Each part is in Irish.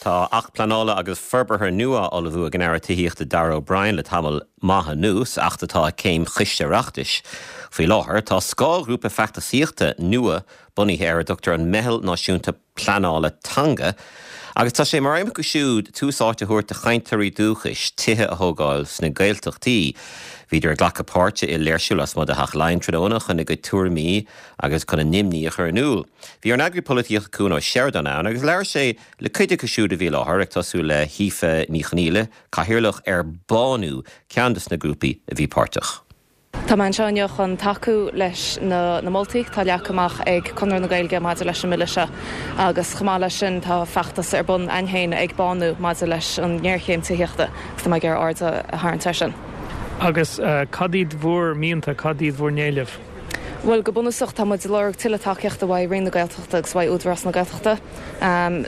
Tá Acht Pleanála agus Forbartha nua á ullmhú ag an Aire Tithíochta Darragh O'Brien le tamall maith anuas, acht atá ag céim Choiste Oireachtais faoi láthair. Tá scáthghrúpa feachtasaíochta nua bunaithe ar a dtugtar an Meitheal Náisiúnta Pleanála Teanga agus tá sé mar aidhm acu siúd tús áite a thabhairt do chainteoirí dúchais tithe a thógáil sna Gaeltachtaí. Bhíodar ag glacadh páirte i léirsiú lasmuigh de Theach Laighean tráthnóna chun a gcuid tuairimí agus chun a n-imní a chur in iúl. Bhí ár n-eagraí polaitíochta Cuan Ó Seireadáin ann agus labhair sé le cuid acu siúd a bhí i láthair, ag tosú le hAoife Ní Chonaola, cathaoirleach ar Bánú, ceann de na grúpaí a bhí páirteach. Tá mé anseo inniu chun tacú leis na moltaí atá leagtha amach ag Conradh na Gaeilge maidir leis an mBille seo agus chomh maith leis sin tá feachtas ar bun againn féin ag Bánú maidir leis an ngéarchéim tithíochta agus tá mé ag iarraidh aird a tharraingt air sin. Agus cad iad bhur mianta, cad iad bhur n-éilimh? Bhuel, go bunúsach tá muid ag lorg tuilleadh tacaíochta uaidh Roinn na Gaeltachta agus uaidh Údarás na Gaeltachta.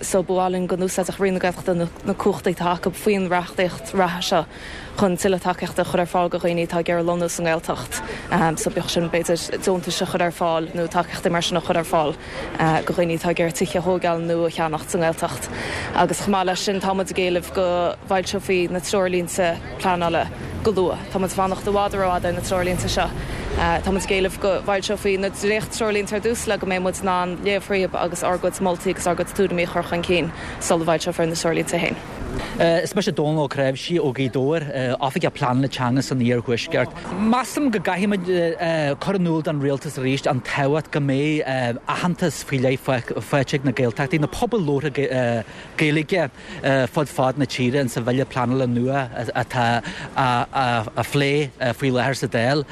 So ba mhaith linn go n-úsáidfeadh Roinn na Gaeltachta na cumhachtaí atá acu faoin reachtaíocht reatha seo chun tuilleadh tacaíochta a chur ar fáil do dhaoine atá ag iarraidh lonnú sa nGaeltacht. So bíodh sin b'fhéidir deontais a chur ar fáil nó tacaíochtaí mar sin a chur ar fáil do dhaoine atá ag iarraidh tithe a thógáil nó a cheannacht sa nGaeltacht. Agus chomh maith leis sin tá muid ag éileamh go bhfoilseofaí na treoirlínte pleanála go luath. Tá muid ag fanacht i bhfad rófhada ar na treoirlínte seo. Tá muid ag éileamh go bhfoilseofaí na dréacht-treoirlínte ar dtús le go mbeidh muid in ann léamh thríob agus ár gcuid moltaí agus ár gcuid tuairimí a chur chun cinn sula bhfoilseofar na treoirlínte féin. Is mise Dónal Ó Cnáimhsí ó Ghaoth Dobhair, Oifigeach Pleanála Teanga san Iarthuaisceart. Measaim go gcaithfimid cur in iúl don Rialtas arís an tábhacht go mbeidh aitheantas faoi leith faighte ag na Gaeltachtaí, na pobail labhartha Gaeilge, fud fad na tíre insa bhille pleanála nua atá á phlé faoi láthair sa Dáil.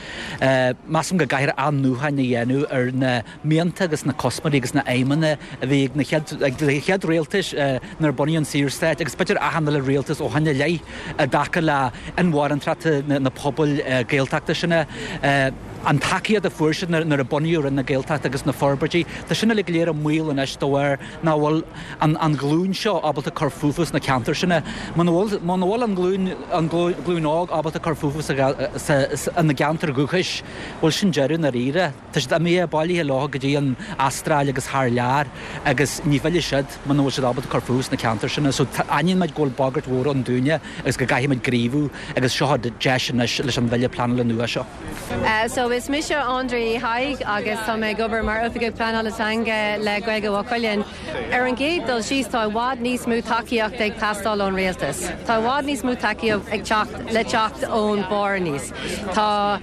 Measaim go gcaithfear athnuachan a dhéanamh ar na mianta agus na cuspóirí agus na aidhmeanna a bhí ag na chéad rialtais nuair a bunaíodh an Saorstát agus b'fhéidir achan uile rialtas ó shin i leith i dtaca le inmharthanacht na pobail Gaeltachta sin. An tacaíocht a fuair siad nuair a bunaíodh Roinn na Gaeltachta agus na forbairtí, tá sin uilig go léir i mbaol anois de bharr nach bhfuil an ghlúin seo ábalta cur fúthu sna ceantair sin. Muna bhfuil, muna bhfuil an ghlúin, an ghlúin óg ábalta cur fúthu sa, sa, ina gceantar dhúchais, bhuel sin deireadh i ndáiríre. Tá siad imithe, bailithe leo go dtí an Astráil agus thar lear agus ní fhillfidh siad muna bhfuil siad ábalta cur fúthu sna ceantair sin. So aithníonn muid go bhfuil bagairt mhór ann dúinne agus go gcaithfidh muid gníomhú agus seo deis anois leis an bhille pleanála nua seo. So is mise Andrea Uí Thaidhg agus tá mé ag obair mar Oifigeach Pleanála Teanga le Gaeilge Mhaigh Cuilinn. Ar an gcéad dul síos tá i bhfad níos mó tacaíochta ag teastáil ón rialtas. Tá i bhfad níos mó tacaíocht ag teacht le teacht ón barr aníos. Tá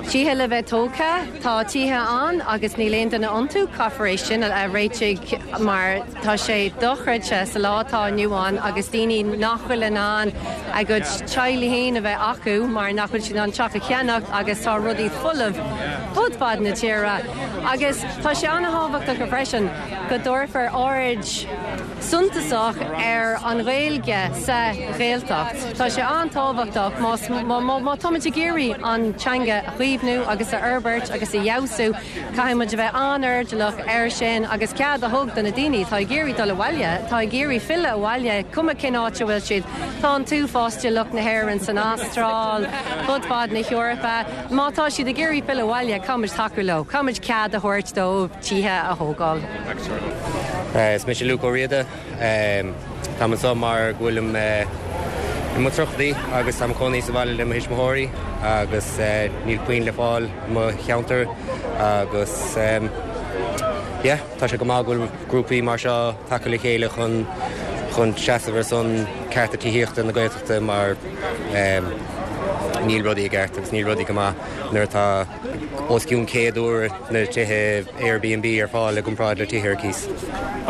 tithe le bheith tógtha, tá tithe ann agus níl aon duine iontu, caithfear é sin a réitigh mar tá sé dochreidte sa lá atá inniu ann agus daoine nach bhfuil in ann a gcuid teaghlaigh féin a bheith acu mar nach bhfuil siad in ann teach a cheannacht agus tá rudaí folamh fud fad na tíre agus tá sé an-thábhachtach freisin go dtabharfar aird suntasach ar an Ghaeilge sa Ghaeltacht. Tá sé an-tábhachtach más má táimid ag iarraidh an teanga a chaomhnú agus a fhorbairt agus a fheabhsú, caithfidh muid a bheith an-airdeallach air sin agus cead a thug do na daoine atá ag iarraidh dul abhaile, atá ag iarraidh filleadh abhaile, cuma cén áit a bhfuil siad. Tá an t-uafás de lucht na hÉireann san Astráil, fud fad na hEorpa. Má tá siad ag iarraidh filleadh abhaile, caithfidh muid tacú leo, caithfidh muid cead a thabhairt dóibh tithe a thógáil. Is mise Luke Ó Riada. Táim anseo mar go bhfuilim i mo tríochaidí agus táim ag cónaí sa bhaile le mo thuismitheoirí agus níl puinn le fáil i mo cheantar agus yeah tá sé go maith go bhfuil grúpaí mar seo tagtha le chéile chun chun seasamh ar son cearta tithíochta na Gaeltachta mar níl rudaí i gceart agus níl rudaí go maith nuair atá os cionn 100 uair na tithe Airbnb ar fáil i gcomparáid le tithe ar cíos.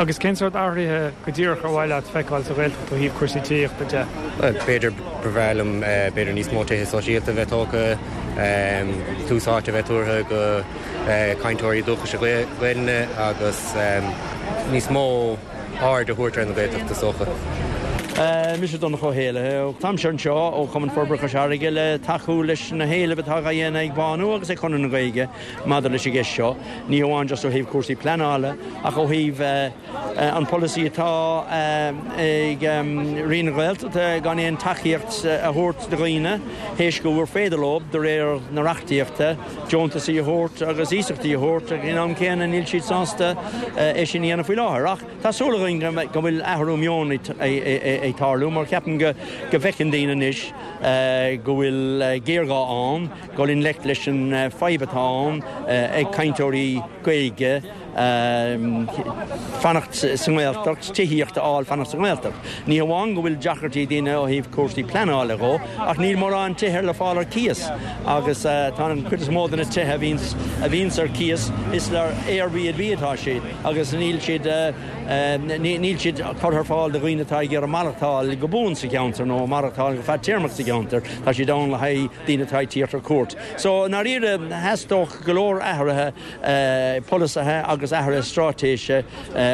Agus cén sórt athruithe go díreach ar mhaith leat feiceáil sa Ghaeltacht ó thaobh cúrsaí tithíochta de? Bhuel, b'fhéidir ba bhreá liom b'fhéidir níos mó tithe sóisialta a bheith tógtha, tús áite a bheith tabhartha go cainteoirí dúchais Gaelainne agus níos mó aird a thabhairt ar na Gaeltacht is dócha. Mise Donncha Ó hÉallaithe. Táimse anseo ó Chumann Forbartha Chois Fharraige le tacú leis na héilimh atá á dhéanamh ag Bánú agus ag Conradh na Gaeilge maidir leis an gceist seo, ní hamháin just ó thaobh cúrsaí pleanála ach ó thaobh an polasaí atá ag Roinn na Gaeltachta gan aon tacaíocht a thabhairt do dhaoine théis go gur féidir leo, de réir na reachtaíochta, deontasaí a thabhairt agus iasachtaí a thabhairt ach in am céanna níl siad sásta é sin a dhéanamh faoi láthair. Ach tá súil againn go bhfuil athrú meoin ag tarlú mar ceapaim go bhfeiceann daoine anois go bhfuil géarghá ann dul i ngleic leis an fadhb atá ann ag cainteoirí Gaeilge fanacht sa nGaeltacht, tithíocht a fháil fanacht sa nGaeltacht. Ní hamháin go bhfuil deacrachtaí ag daoine ó thaobh cúrsaí pleanála dhó, ach níl mórán tithe le fáil ar cíos agus tá an chuid is mó de na tithe a bhíonns a bhíonns ar cíos is le Airbnb atá siad agus níl siad níl siad curtha ar fáil do dhaoine atá ag iarraidh maireachtáil go buan sa cheantar nó maireachtáil go fadtéarmach sa cheantar, tá siad ann le haghaidh daoine atá ag tíocht ar cuairt. So, i ndáiríre, theastódh go leor athruithe polasaithe agus athruithe straitéise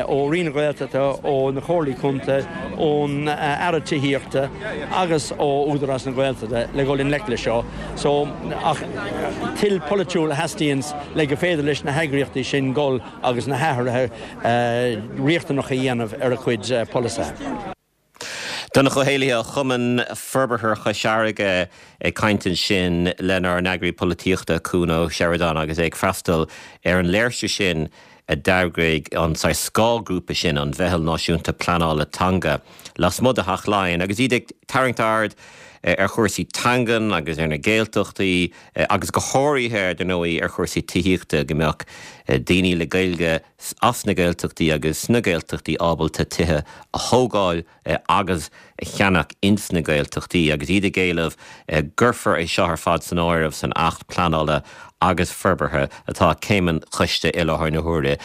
ó Roinn na Gaeltachta, ó na Comhairlí Contae, ón Aire Tithíochta agus ó Údarás na Gaeltachta le dhul i ngleic leis seo. So, ach toil polaitiúil a theastaíonns le go féidir leis na heagraíochtaí sin dhul agus na hathruithe riachtanacha a dhéanamh ar a gcuid polasaithe. Donncha Ó hÉallaithe ó Chumann Forbartha Chois Fharraige ag caint ansin lenár n-eagraí polaitíochta Cuan Ó Seireadáin agus é ag freastal ar an léirsiú sin a d'eagraigh an saghas scáthghrúpa sin, an Mheitheal Náisiúnta Pleanála Teanga, lasmuigh de Theach Laighean agus iad ag tarraingt aird ar chúrsaí teangan agus ar na Gaeltachtaí agus go háirithe, ar ndóigh, ar chúrsaí tithíochta, go mbeadh daoine le Gaeilge as na Gaeltachtaí agus sna Gaeltachtaí ábalta tithe a thógáil agus a cheannach ins na Gaeltachtaí agus iad ag éileamh gcuirfear é seo ar fad san áireamh san Acht Pleanála agus Forbartha atá ag céim an choiste i láthair na huaire.